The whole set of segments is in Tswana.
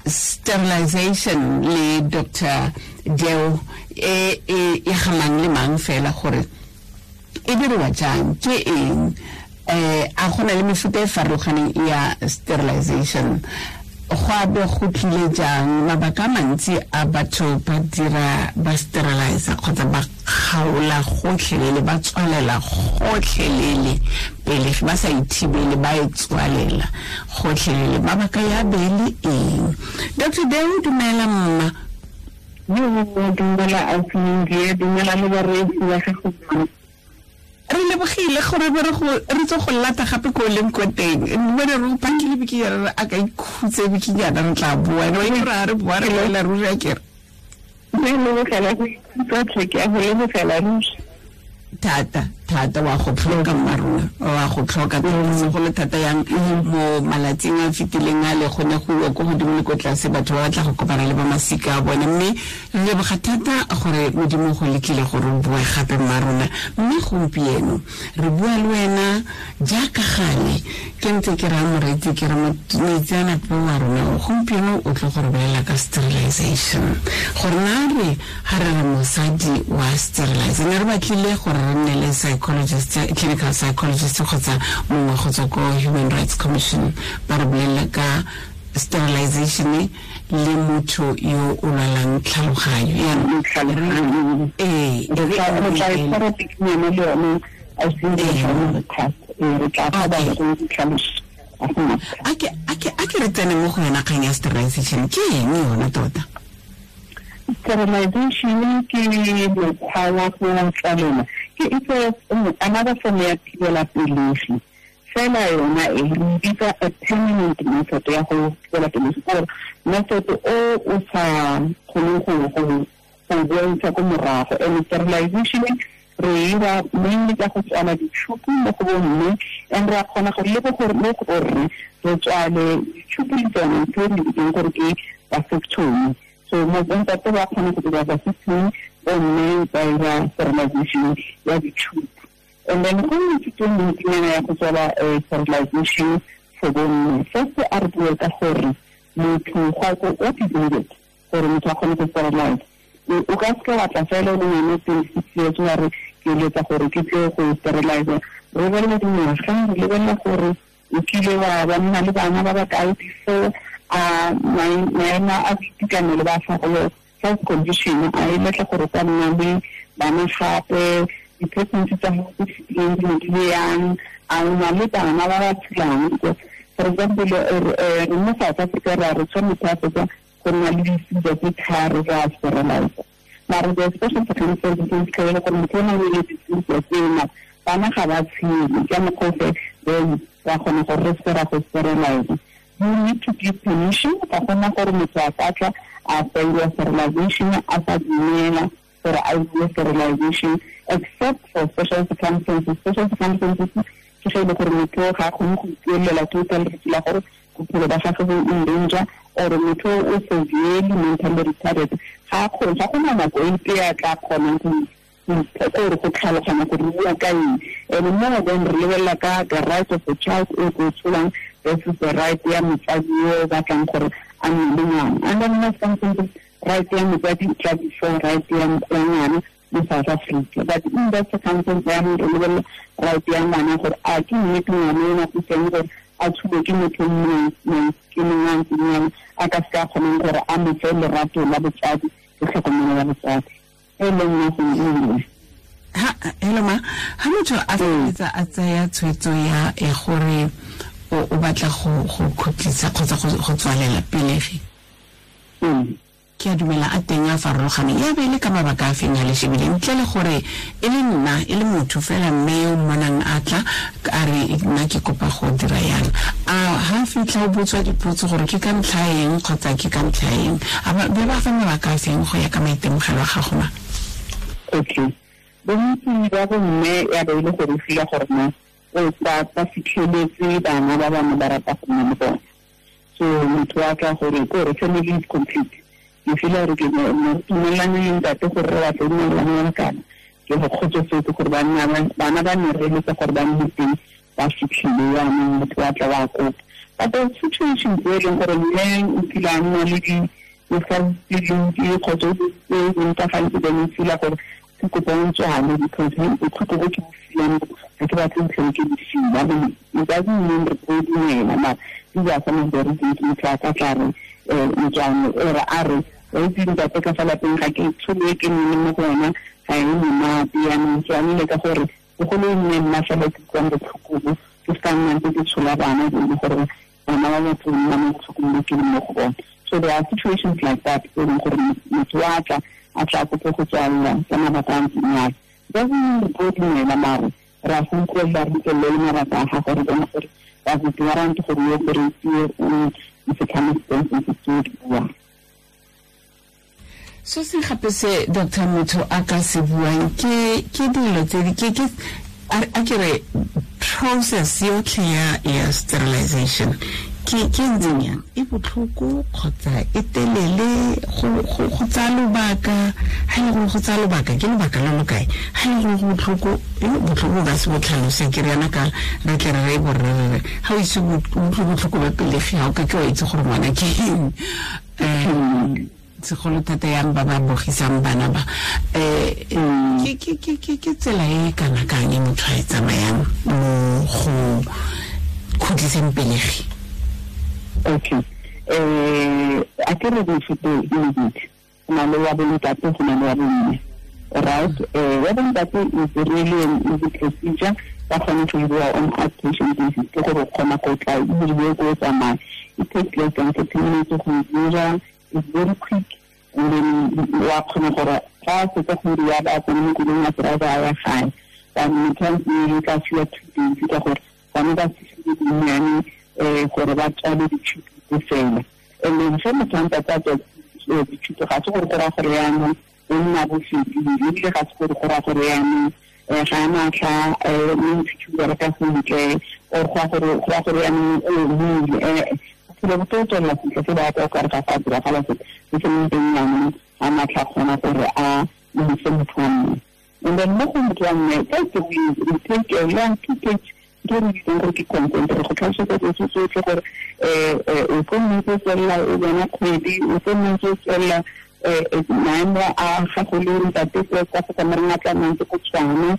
Sterilization le Dr Deo e e e gamang le mang fela gore e diriwa jang, ke eng, a gona le mefuta e farologaneng ya sterilization, go a be go tlile jang, mabaka a mantsi a batho ba dira ba sterilize kgotsa ba kgaola gotlhelele, ba tswalela gotlhelele pele ba sa ithibele, ba e tswalela gotlhelele, mabaka ya be le eng? Dr Deo, dumela mma. Dumela ausi, dumela le bareetsi ba gago. Re lebogile gore be re tso go lata gape ko leng ko teng, mme re go pakile bikinyana re a ka ikhutse bikinyana, re tla boa ene wa itse re boa re boela ruri a kere. Re lebogela go ikhutsa tlhe, ke a go lebogela ruri. Thata thata wa go tlhoka mma rona, wa go tlhoka thata, segolo thata yang mo malatsing a fetileng a le go ne go iwa ko godimo le ko tlase, batho ba batla go kopana le ba masika a bone. Mme re leboga thata gore Modimo go letlile gore o boe gape mma rona. Mme gompieno re bua le wena jaaka gale ke ntse ke raya moreetsi ke re moitseanape wa rona gompieno o tlo go re bolela ka sterilization, gore na re ga re re mosadi wa sterilize, ne re batlile gore re nne le psychologist, clinical psychologist kgotsa mongwe go tswa ko Human Rights Commission ba re bolelela ka sterilization le motho yo o lwalang tlhaloganyo. Yaanong ee, re tla e tshwara bikinyana le yone re tla fa ba go ditlhaloso. A ke re tsene mo go yona kgang ya sterilization, ke eng yona tota? Sterilization ke mokgwa wa go tswalela, ke it's another form ya thibela pelegi fela. Yona e re bitsa a permanent method ya go thibela pelegi, gore method o o sa kgoneng go boelisa ko morago. And sterilization re ira mainly ka go tswala ditšhupu mo go bomme, and re a kgona gore le gore mo go borre re tswale ditšhupu le tsone, ntho e re bitseng gore ke vasectomy. So mo bontate ba kgona go dira vasectomy, bomme ba ira sterilization ya ditšhupu. And then go mefuta e mentsinyana ya go tswala sterilization for bomme. First a re bue ka gore motho go what is needed gore motho a kgone go sterilize. O ka seke wa tla fela o le ngwana 26 years wa re ke eletsa gore ke tle go sterilize. Re lebelela dingwaga, re lebelela gore o kile wa ba nna le bana ba ba kae before, a maemo a boitekanelo ba gago, health condition, a e letla gore o ka nna le bana gape, di-pregnancy tsa gago tse fetileng di ne di le yang, a o na le bana ba ba tshelang. Because for example, re mo South Africa re a re tshwanetse a fetsa go nna le diseases tse tharo re a sterilize, mare the special circumstances tse fitlhelele gore motho o na le diseases tsena, bana ga ba tshele ka mokgwa ofe, then ra kgona gore re seke ra go sterilize. You need to give permission. Ga gona gore motho a ka tla a failwa sterilization a sa dumela gore a bue sterilization, except for special circumstances. Special circumstances ke ge e le gore motho ga a kgone go ipuelela total, re feel gore bophelo ba gagwe bo in danger, or motho o severely mentally retarded, ga a kgone, ga gona nako epe a tla kgonang go gore go tlhaloganya gore re bua ka eng. And more then re lebelela ka the right of the child e ko tsholang versus the right ya motsadi yo o batlang gore a nne le ngwana. And then most circumstances, right ya motsadi e tla before right ya ngwana mo South Africa. But in that circumstance yaanong re lebelela right ya ngwana, gore a ke nnete ngwana o nako teng gore a tshubo ke motho mongwe ke mongwe a ntseng yana a ka seka a kgonang gore a mo fe lerato la botsadi le tlhokomelo ya botsadi e leng nothing e nngwe. Ha, hello ma, ha motho a feleletsa a tsaya tshwetso ya e gore o batla go khutlisa kgotsa go tswalela pelegi, ke a dumela a teng a farologaneng, ya be e le ka mabaka a feng a le shebile, ntle le gore e le nna e le motho fela mme yo mmonang a tla a re nna ke kopa go dira yang, a ha fitlha o botswa dipotso gore ke ka ntlha eng kgotsa ke ka ntlha eng, a ba be ba fa mabaka a feng go ya ka maitemogelo a gago ma? Okay, bontsi ba bomme ya be e le gore o feel gore no o ba fitlheletse bana ba bangwe ba rata go nna le bone. So motho wa tla gore ke gore family is complete, ke feel gore ke tumelane le ntate gore re batla nna le kana ke go kgotsofetse gore bana ba ne re eletsa gore ba nne teng ba fitlhile. Yaanong motho wa tla wa kopa. But there are situations where e leng gore mme o kile a nna le di kgotsa o ntafantse then o feel-a gore ke kopa o tswale because botlhoko bo ke bo filang ga ke batle ntlhele ke di feel-a. It doesn't mean re tlo dumela, mara these are some of the reasons motho a ka tla re motswane ore a re wa itse ntate ka fa lapeng ga ke tsholo e ke nne mo go yona ga e monate, yaanong tswanele ka gore bogolo e nne nna fela ke utlwang botlhoko bo, ke se ka nna ntse ke tshola bana e le gore bana ba batho nna mo botlhokong bo ke leng mo go bone. So there are situations like that e leng gore motho wa tla a tla kope go tswalela ka mabaka a ntseng yalo. Doesn't mean re tlo dumela, mare re a go utlwelela, re utlwelele le mabaka a gago, re bone gore ba go warrant gore o operate o di-circumstances tse o di buang. So se gape se Dr. Motho a ka se buang ke dilo tse di ke a ke re process yotlhe ya sterilization ke ntseng yang, e botlhoko kgotsa e telele, go tsaya lobaka, ha e le gore go tsaya lobaka ke lobaka lo lo kae, ha e le gore go botlhoko, botlhoko ka se bo tlhalose ke re yana ka re tle re re borre re re ha o ise o utlwe botlhoko ba pelegi ga o ka ke wa itse gore ngwana ke eng. Segolo thata yang ba ba bogisang bana ba, ke tsela e kana kang e motho a e tsamayang mo go khutliseng pelegi? Okay, a ke re mefuta e mebedi, go na le wa bontate, go na le wa bomme, right? Wa bontate is really an easy procedure, ba kgone go diriwa on outpatient basis, ke gore o kgona go tla o diriwe ko o tsamaya. It takes less than 30 minutes go e dira, it's very quick, and then wa kgona gore ga a fetsa go dira ba tsene mo koloing a driver a ya gae. But motho a ntse tla fiwa 2 days ka gore bane ba fitlhile dinnyane gore ba tswale ditšhupi tse fela. And then ge motho a ntate a tswa ditšhupi, ga se gore go raya gore yaanong o nna bofedile, ebile ga se gore go raya gore yaanong ga a matlha mme ntšhupi bereka sentle, or go raya gore yaanong o omile. Bophelo bo tlo tswelela sentle se ba ka o kare ga go a diragala sepe, se se leng teng yaanong ga matlha kgona gore a ise motho wa mme. And then mo go motho wa mme, first we take a long 2 page ke re bitsang gore ke consent, re go tlhalosetsa dilo tse tsotlhe gore o tlo nna ntse o tswelela o bona kgwedi, o tlo nna ntse o tswelela maemo a gago le ntate ka fa kamareng a tla nna ntse go tshwana,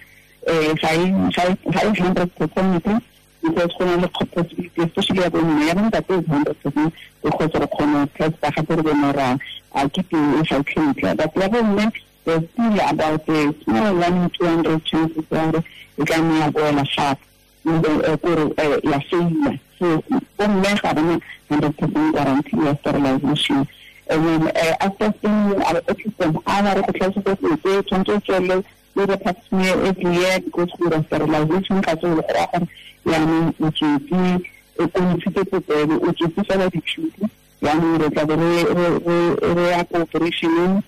ga e 100% because go na le possibility, especially ya bomme, ya bontate is 100% because re kgona go testa gape re bone gore a ke teng e ga e tlhentle. But ya bomme there's still about a small 1 in 200 chances gore e ka nna ya boela gape kore ya faila. So bomme ga bana 100% guarantee ya sterilization. And then after spending at least an hour re go tlhalosetsa dilo tse tshwanetse o tswelele le the pap smear every year because go sterilization ga se go raya gore yaanong o tswetse o ntshitse popelo, o tswetse fela ditšhupi, yaanong re tla be re ya ko operationeng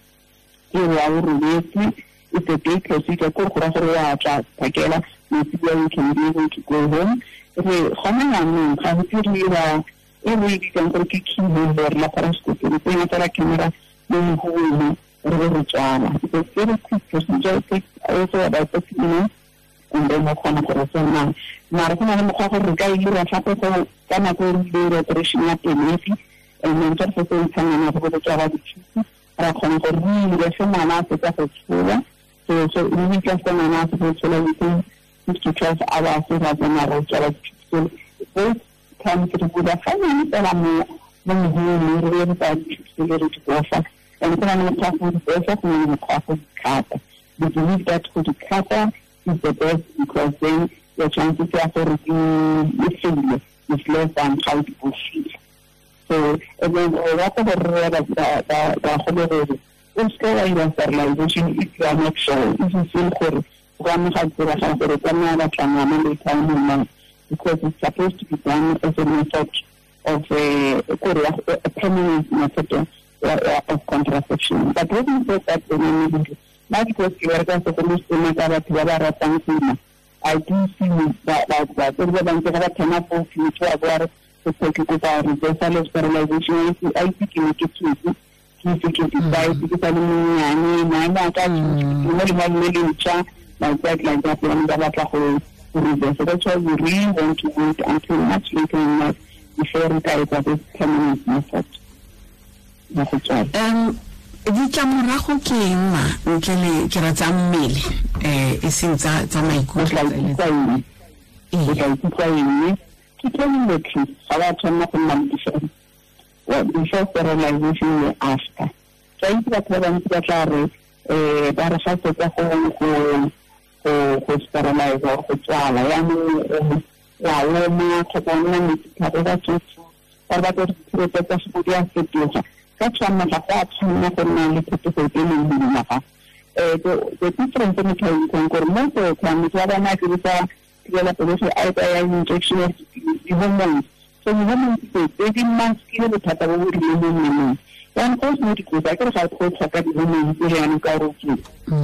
e wa o robetse. It's a day procedure, ko go raya gore wa tla phakela matsibua, you can be able to go home. Re gona yaanong ga go diriwa e re e bitsang gore ke keyhole or laparoscopy, re tsenya fela camera mo moholong re be re tswala. It's a very quick procedure, it takes also about 30 minutes, and then o kgona gore tsamaya. Mara go na le mokgwa gore re ka e dira gape go ka nako e re ile operation ya pelegi, and then fa re setse re ntsha ngwana go bo tswala ditšhupi, ra kgona gore re dire ge ngwana a fetsa go tsholwa. So immediately after ngwana a fetsa go tsholwa within 6 to 12 hours ra tsena re tswala ditšhupi tsele. Both times re bula ga nnyane fela mo moholong, re be re tsaya ditšhupi tsele re di bofa. And go na le mokgwa go di bofa, go na le mokgwa go di cut-a. We believe that go di cut-a is the best because then your chances ya gore di faile is less than ga o di bofile. So and then re rata gore re bagolo gore o seke wa dira sterilization if you are not sure, if you feel gore go ka nna ga diragala gore o ka nna wa batla ngwana later on in life, because it's supposed to be done as a method of a permanent method of contraception. But having said that, nna because ke bereka segolo sena ka batho ba ba ratang go ima, I do see batsadi ba bantsi ga ba thoma fo motho wa bo a re ke kopa reversal of sterilization, a itse ke ne ke tswetse ke ise ke decide ke sa le monnyane, maemo a ka mo lenyalong le le ntšha, like that, jaanong ba batla go reverse. That's why we really want to wait until much later in life Before re ka etsa this permanent method ya go tswala. Ditlamorago ke eng ma ntle le ke ra tsa mmele e seng tsa maikutlo? O tla ikutlwa eng? Ke telling the truth, ga wa tshwanela go nna le before sterilization le after. Ke a itse batho ba bantsi ba tla re ba re ga fetsa go sterilize or go tswala yaanong wa oma kgotsa o nna metsi thata ba tsotso ba batla gore ditshirete tsa gago di a fetoga. Ka tshwanna ga go a tshwanna go nna le phetogo e leng godimo ga the difference e motho a itseng gore mo go motho wa bona a dirisa thibela pelegi a etsa ya injection of di-hormones. So di-hormones tse di maskile bothata bo bo rileng mo mmeleng. Jaanong go seno dikotsi a kere ga go tlhoka di-hormones tse jaanong ka gore o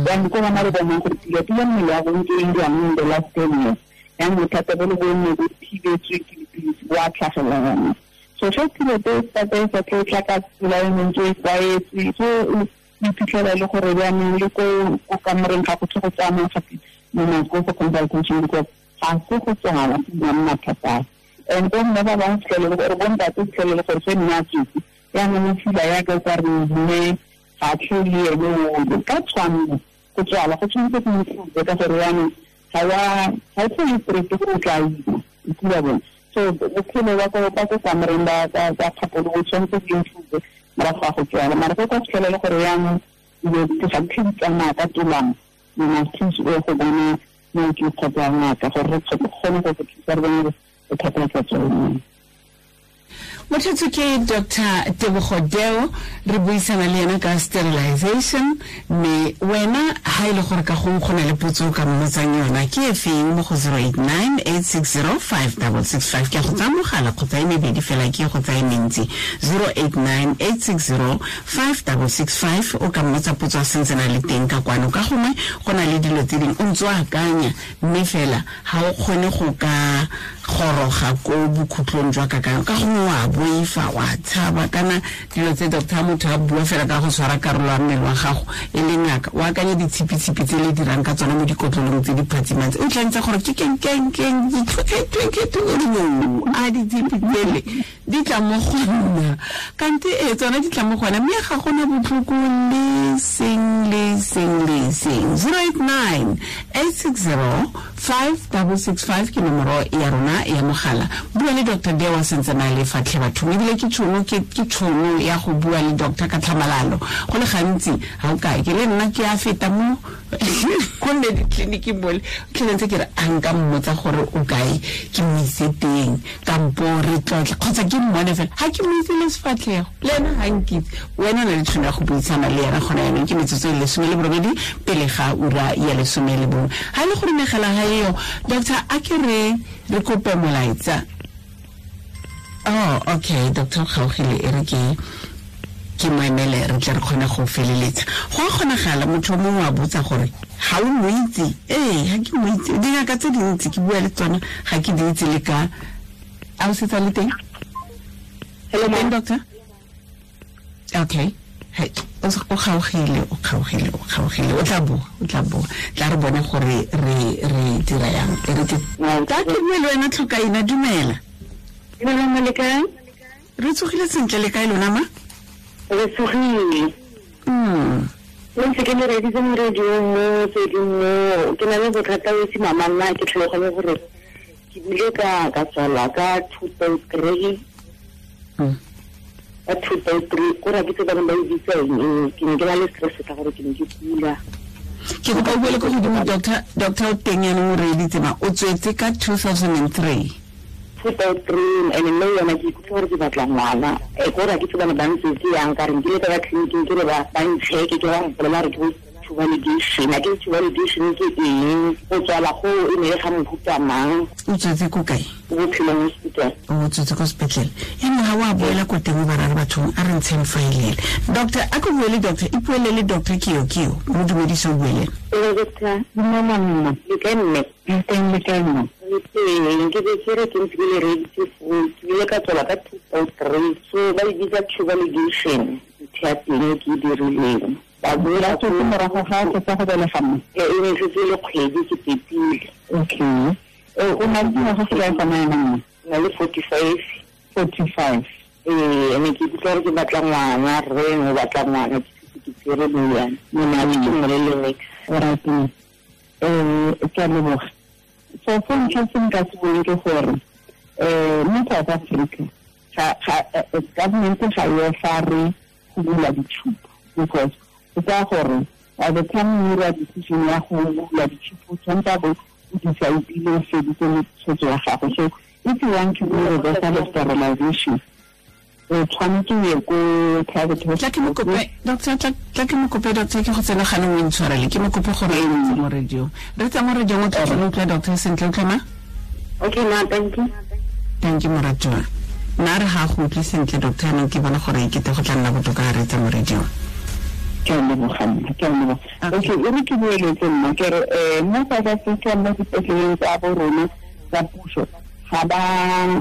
jaanong ko bona re bonang gore pila mmele wa go ntse e dirang in the last 10 years. Jaanong bothata bo le bo nne bo thibetswe ke dipilisi bo a tlhagelela jaanong. So ge tšhelete e sa tlo tla ka tsela e ntse e tlwaetse, so o iphitlhela le gore jaanong le ko kamoreng ga go tlhe go tsamaya gape mo nako go consultation because ga se go tswala go nna mathata. And bo mme ba bangwe fitlhele le gore bo ntate fitlhele le gore se nne a tswetse jaanong o fila yaka o ka re mme ga tlhe le ene ole. Ka tshwanno go tswala go tshwanetse go improve ka gore jaanong ga o tlhole stress gore o tla ima o kula bone. So bophelo ba ko kamoreng ba kgapolo bo tshwanetse bo improve morago ga go tswala. Mara go ka fitlhela le gore jaanong dilo ga di tlhe di tsamaya ka tolamo, you must thusa o go bona mooki kgotsa ngaka gore re kgone go go thusa re bone bothata tsa tsone. Motho ke Dr. Tebogo Deo, re buisana le ena ka sterilization. Mme wena ha e le gore ka gongwe go na le potso o ka mmotsang yona ke e feng mo go 089 860 5665. Ke go tsaya mogala kgotsa e mebedi fela ke go tsaya mentsi. 089 860 5665 o ka mmotsa potso a sentse na le teng ka kwano. Ka gongwe go na le dilo tse dingwe o ntse o akanya mme fela ga o kgone go ka goroga ko bokhutlong jwa kakanyo, ka gongwe wa boifa wa tshaba kana dilo tse doctor motho a bua fela ka go tshwara karolo ya mmele wa gago e le ngaka o akanye ditshipitshipi tse le dirang ka tsona mo dikotlolong tse di phatsimang tse o tla ntse gore ke keng a ditshipi tsele di tla mo go nna kante e tsona di tla mo gona mme ga gona botlhoko le seng le seng le seng. 089 860 5665 ke nomoro ya rona ya mogala. Bua le Dr. Deo a sentse na le fatlhe bathong, ebile ke tšhono ya go bua le doctor ka tlhamalalo. Go le gantsi ga o kae ke le nna ke a feta mo ko nne ditleliniking mole tlhele ntse ke re a nka mmotsa gore o kae ke mo ise teng kampo re tlotle kgotsa ke mmone fela ga ke mo itse le sefatlhego le ena ga nkitse. Wena o na le tšhono ya go buisana le ena gona yanong ke metsotso e 18 pele ga ura ya 11. Ga e le gore megala ga eo doctor a ke re kope molaetsa. Oh, okay, Dr. Kgaogile e re ke mo emele re tle re kgone go feleletsa. Go a kgonagala motho o mongwe a botsa gore ga o mo itse. Ee, ga ke mo itse. Dingaka tse dintsi ke bua le tsona ga ke di itse le ka a o setsa le teng? Hello, teng doctor? Okay. Hey, o kgaogile. O tla boa. Tla re bone gore re dira yang. E re ke ka ke bue le wena Tlhokaina, dumela. Re tsogile sentle le kae lona ma? Re tsogile. Le ntse ke le reditse mo radiong mo tse ding mo ke na le bothata bo se mama nna ke tlhaloganye gore ke bile ka tswala ka 2003. Ka 2003 ko ra ke tse ba ba itse eng ke ne ke na le stress ka gore ke ne ke kula. Ke kopa o buele ko godimo doctor o teng yanong o reeditse ma o tswetse ka 2003. 2003 and mme yona ke ikutlwa gore ke batla ngwana e ko ra ke tsebane ba ntse ke yang ka re nkile ka ba tleliniking ke re ba ntšheke ke ba mpolela re ke bo validation a ke validation ke eng go tswala go e ne ga mohuta mang. O tswetse ko kae? Bophelong hospital. O tswetse ko sepetlele ene ga wa boela ko teng ba ra bathong a re ntsheng faelele. Doctor a ko bue le doctor ipuele le doctor Kio mo dumedise o bue le ena. Doctor mama mma le kae mme? Teng le kae mma? Teng ke be ke re ke ntse ke le reditse foo ke ile ka tswala ka 2003 so ba e bitsa validation ntho ya teng ke e dirileng. Ba boela tswetse morago ga o fetsa go belega mme? E ne setse le kgwedi ke pepile. Okay. O na le dingwaga tse kae gona jaanong? Na le 45. 45. Ene ke ikutlwa gore ke batla ngwana, rre o batla ngwana, ke tsere moriana. Mona ke mmolele niks. Alright. Ke a leboga. So se ntlha se nka se bueng ke gore mo South Africa government ga e offer go bula ditšhupo, because o tsaya gore by the time o dira decision ya go bula ditšhupo, tshwanetse a bo o decide-ile o feditse tshwetso ya gago. So if you want to do reversal of sterilization, o tshwanetse o ye ko private hospital. Doctor, tla ke mo kope, doctor, ke go tsena gane o intshwarele, ke mo kope gore e mo radio. Re tsa mo radio o tla utlwa doctor sentle, utlwa ma? Okay, ma, thank you. Thank you, moratuwa. Nna re ga go utlwe sentle, doctor, neng ke bona gore e kete go tla nna botoka ga re tsa mo radio. Ke a leboga nna, ke a leboga. Okay, e re ke boeletse nna, ke re mo South Africa mo dipetleleng tsa bo rona tsa puso ga ba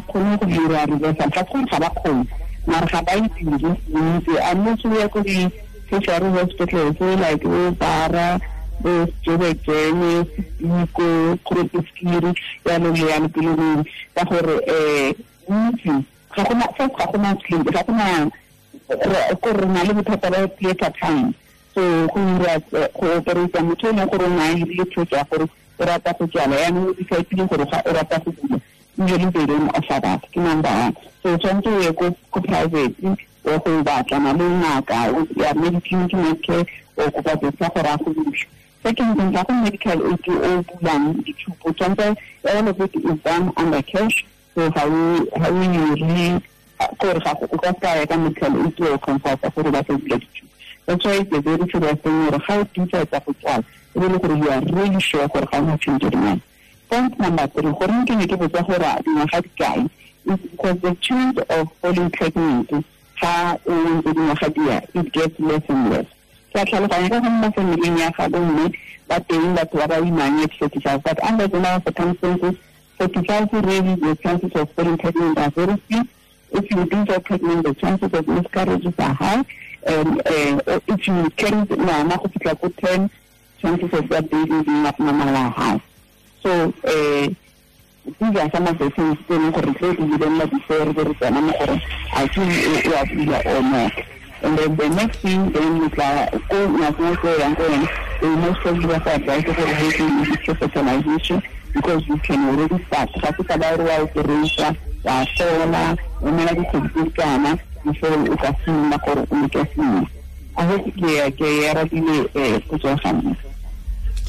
kgone go dira reversal, ga se gore ga ba kgone, mara ga ba e dire bontsi. Unless o ya ko di-tertiary hospitals like bo Bara, bo Joburg-Jene, Sediko, Groote Schuur, jalo le jalo, pele ka gore bontsi ga gona, first ga gona clinic, ga gona ko re na le bothata ba theatre time. So go dira go operate motho e leng gore o na le tshwetso ya gore o rata go tswala, yaanong o decide gore o rata go bula, usually they don't offer that. Ke number one. So tshwanetse o ye ko private o go batlana le ngaka ya Mediclinic, Medicare, o kopa doctor gore a go bule. Second thing, ga go medical aid o bulang ditshupo, tshwanetse all of it is done under cash. So ga o dire gore ga o ka seka ya ka medical aid o consulta gore ba tla bula ditshupo. That's why it's a very serious thing gore ga o decide go tswala, e be le gore you are really sure gore ga o na change your mind. Point number 3, gore ke ne ke botsa gore dingwaga di kae, is because the chance of falling pregnant ga o ntse dingwaga di ya, it gets less and less. Ke a tlhaloganya ka go mo familing ya ga bomme ba teng batho ba ba imang at 45, but under general circumstances, 45 really the chances of falling pregnant are very few. If you do get pregnant, the chances of miscarriages are high. And if you carry ngwana go fitlha ko 10, chances of that baby being abnormal are high. So these are some of the things tse leng gore tse di lebelela before re tsena mo gore a ke o a bula or not. And then the next thing, then you tla ko ngakeng ko yang ko yone, they most probably ba go advise gore go ke fertilization, because you can already start. Ga se taba gore wa operation, wa sola, o mela dikgwedi tse kana before o ka simolola gore o leke sengwe. A go ke arabile potso ya ga mme.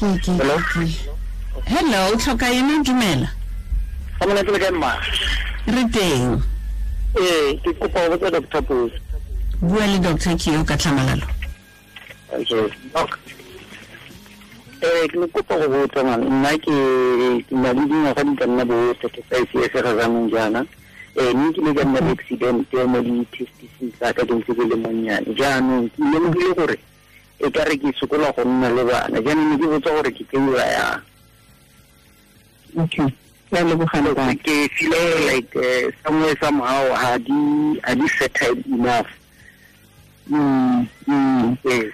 Hello. Hello, tlhoka ena, dumela. Ga mona ke le kae mma? Re teng. Ke kopa go botsa Doctor Potso. Bua le doctor ke yo ka tlhamalalo. Okay, doc. Ke ne kopa go botsa man, nna ke na le dingwaga di ka nna bo 35 years ga jaanong jaana. Mme ke ile ka nna le accident mo di-testiseng tsa ka ke ntse ke le monnyane. Jaanong ke lemogile gore e ka re ke sokola go nna le bana. Jaanong ne ke botsa gore ke tseiwa yang. Okay. Ke a leboga ntate. Ke feel like somewhere somehow ha di fertile enough. Yes.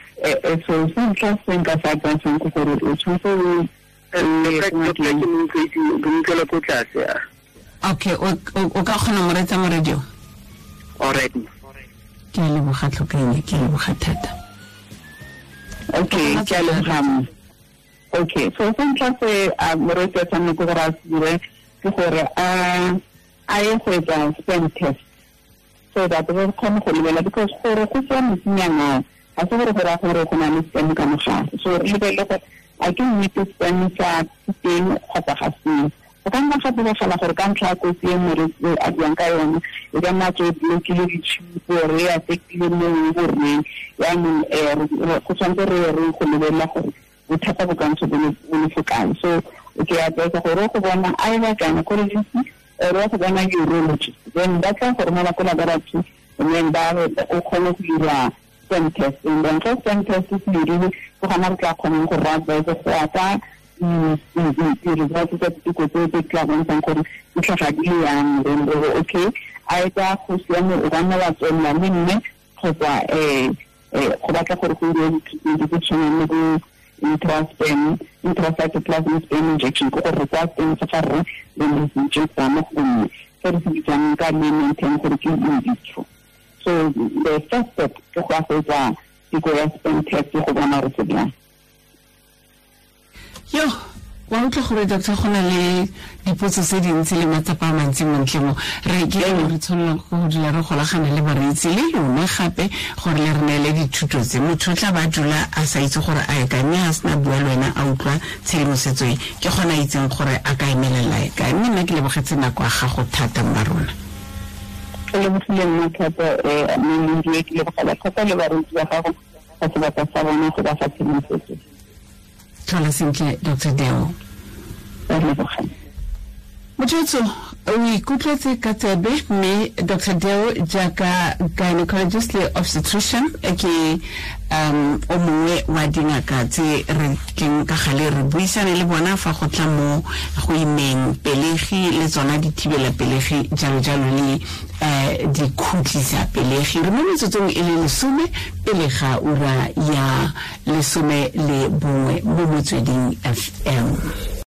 So se ntlha se nka se advisang ke gore o tshwanetse o ke utlwela ko tlase. Okay, o ka kgona mo reetsa mo radio? All right. Ke a leboga tlhokaine, ke a leboga thata. Okay, ke a leboga. Okay, so se ntlha se moreetsi a tshwanetse gore a se dire ke gore a ye go etsa sperm test, so that re kgone go lebelela, because gore go tswa motsinyana ga se gore go raya gore go na le sperm ka mogare. So re lebelele gore a ke nnete sperm sa teng kgotsa ga seo. Go ka nna ga diragala gore ka ntlha ya kotsi e moreetsi a buang ka yone, e ka nna tswe blokile ditšhupo, re affectile mo borreng. Jaanong go tshwanetse re re go lebelela gore bothata bo ka ntse bo le fo kae. So ke advise gore go bona either gynecologist or go bona urologist, then ba tla go romela ko laboratory, and then ba o kgone go dira sperm test. And then ge sperm test se dirile, ke gona re tla kgonang go re advise go ya ka di-results tsa diteko tseo tse tla bontshang gore di tlhaga di le yang. Then re re okay, either go siame o ka nna wa tswelela le mme, kgotsa go batla gore go diriwe di-treatment tse tshwanang le bo intracytoplasmic sperm injection, ke gore re tsaya sperm sa ga rre then re se injecta mo go mme. Se re se bitsang ka layman term gore ke in vitro. So the first step ke go ya go etsa teko ya sperm test go bona gore se bjang. Yo, wa utlwa gore, doctor, go na le dipotso tse dintsi le matsapa a mantsi montle mo re ke re tshwanelang go dula re golagana le bareetsi le lona gape gore le re neele dithuto tse. Motho o tla ba dula a sa itse gore a ye kae, mme a sena bua le wena, a utlwa tshedimosetso e, ke gona a itseng gore a ka emelela e kae. Mme nna ke lebogetse nako ya gago thata, mma rona. Ke lebogile nna thata, mme ke lebogela thata le bareetsi ba gago ka sebaka sa bona go ba fa tshedimosetso. Tlhola sentle, Dr Deo. Motho o ikutlwetse ka tsebe mme Dr Deo jaaka gynecologist le obstetrician ke o mongwe wa dingaka tse re tleng ka gale re buisane le bona fa go tla mo go imeng pelegi le tsona dithibela pelegi, jalo jalo, le dikhutlisa pelegi. Re mo metsotsong e le 10 pele ga ura ya 11 mo Motsweding FM.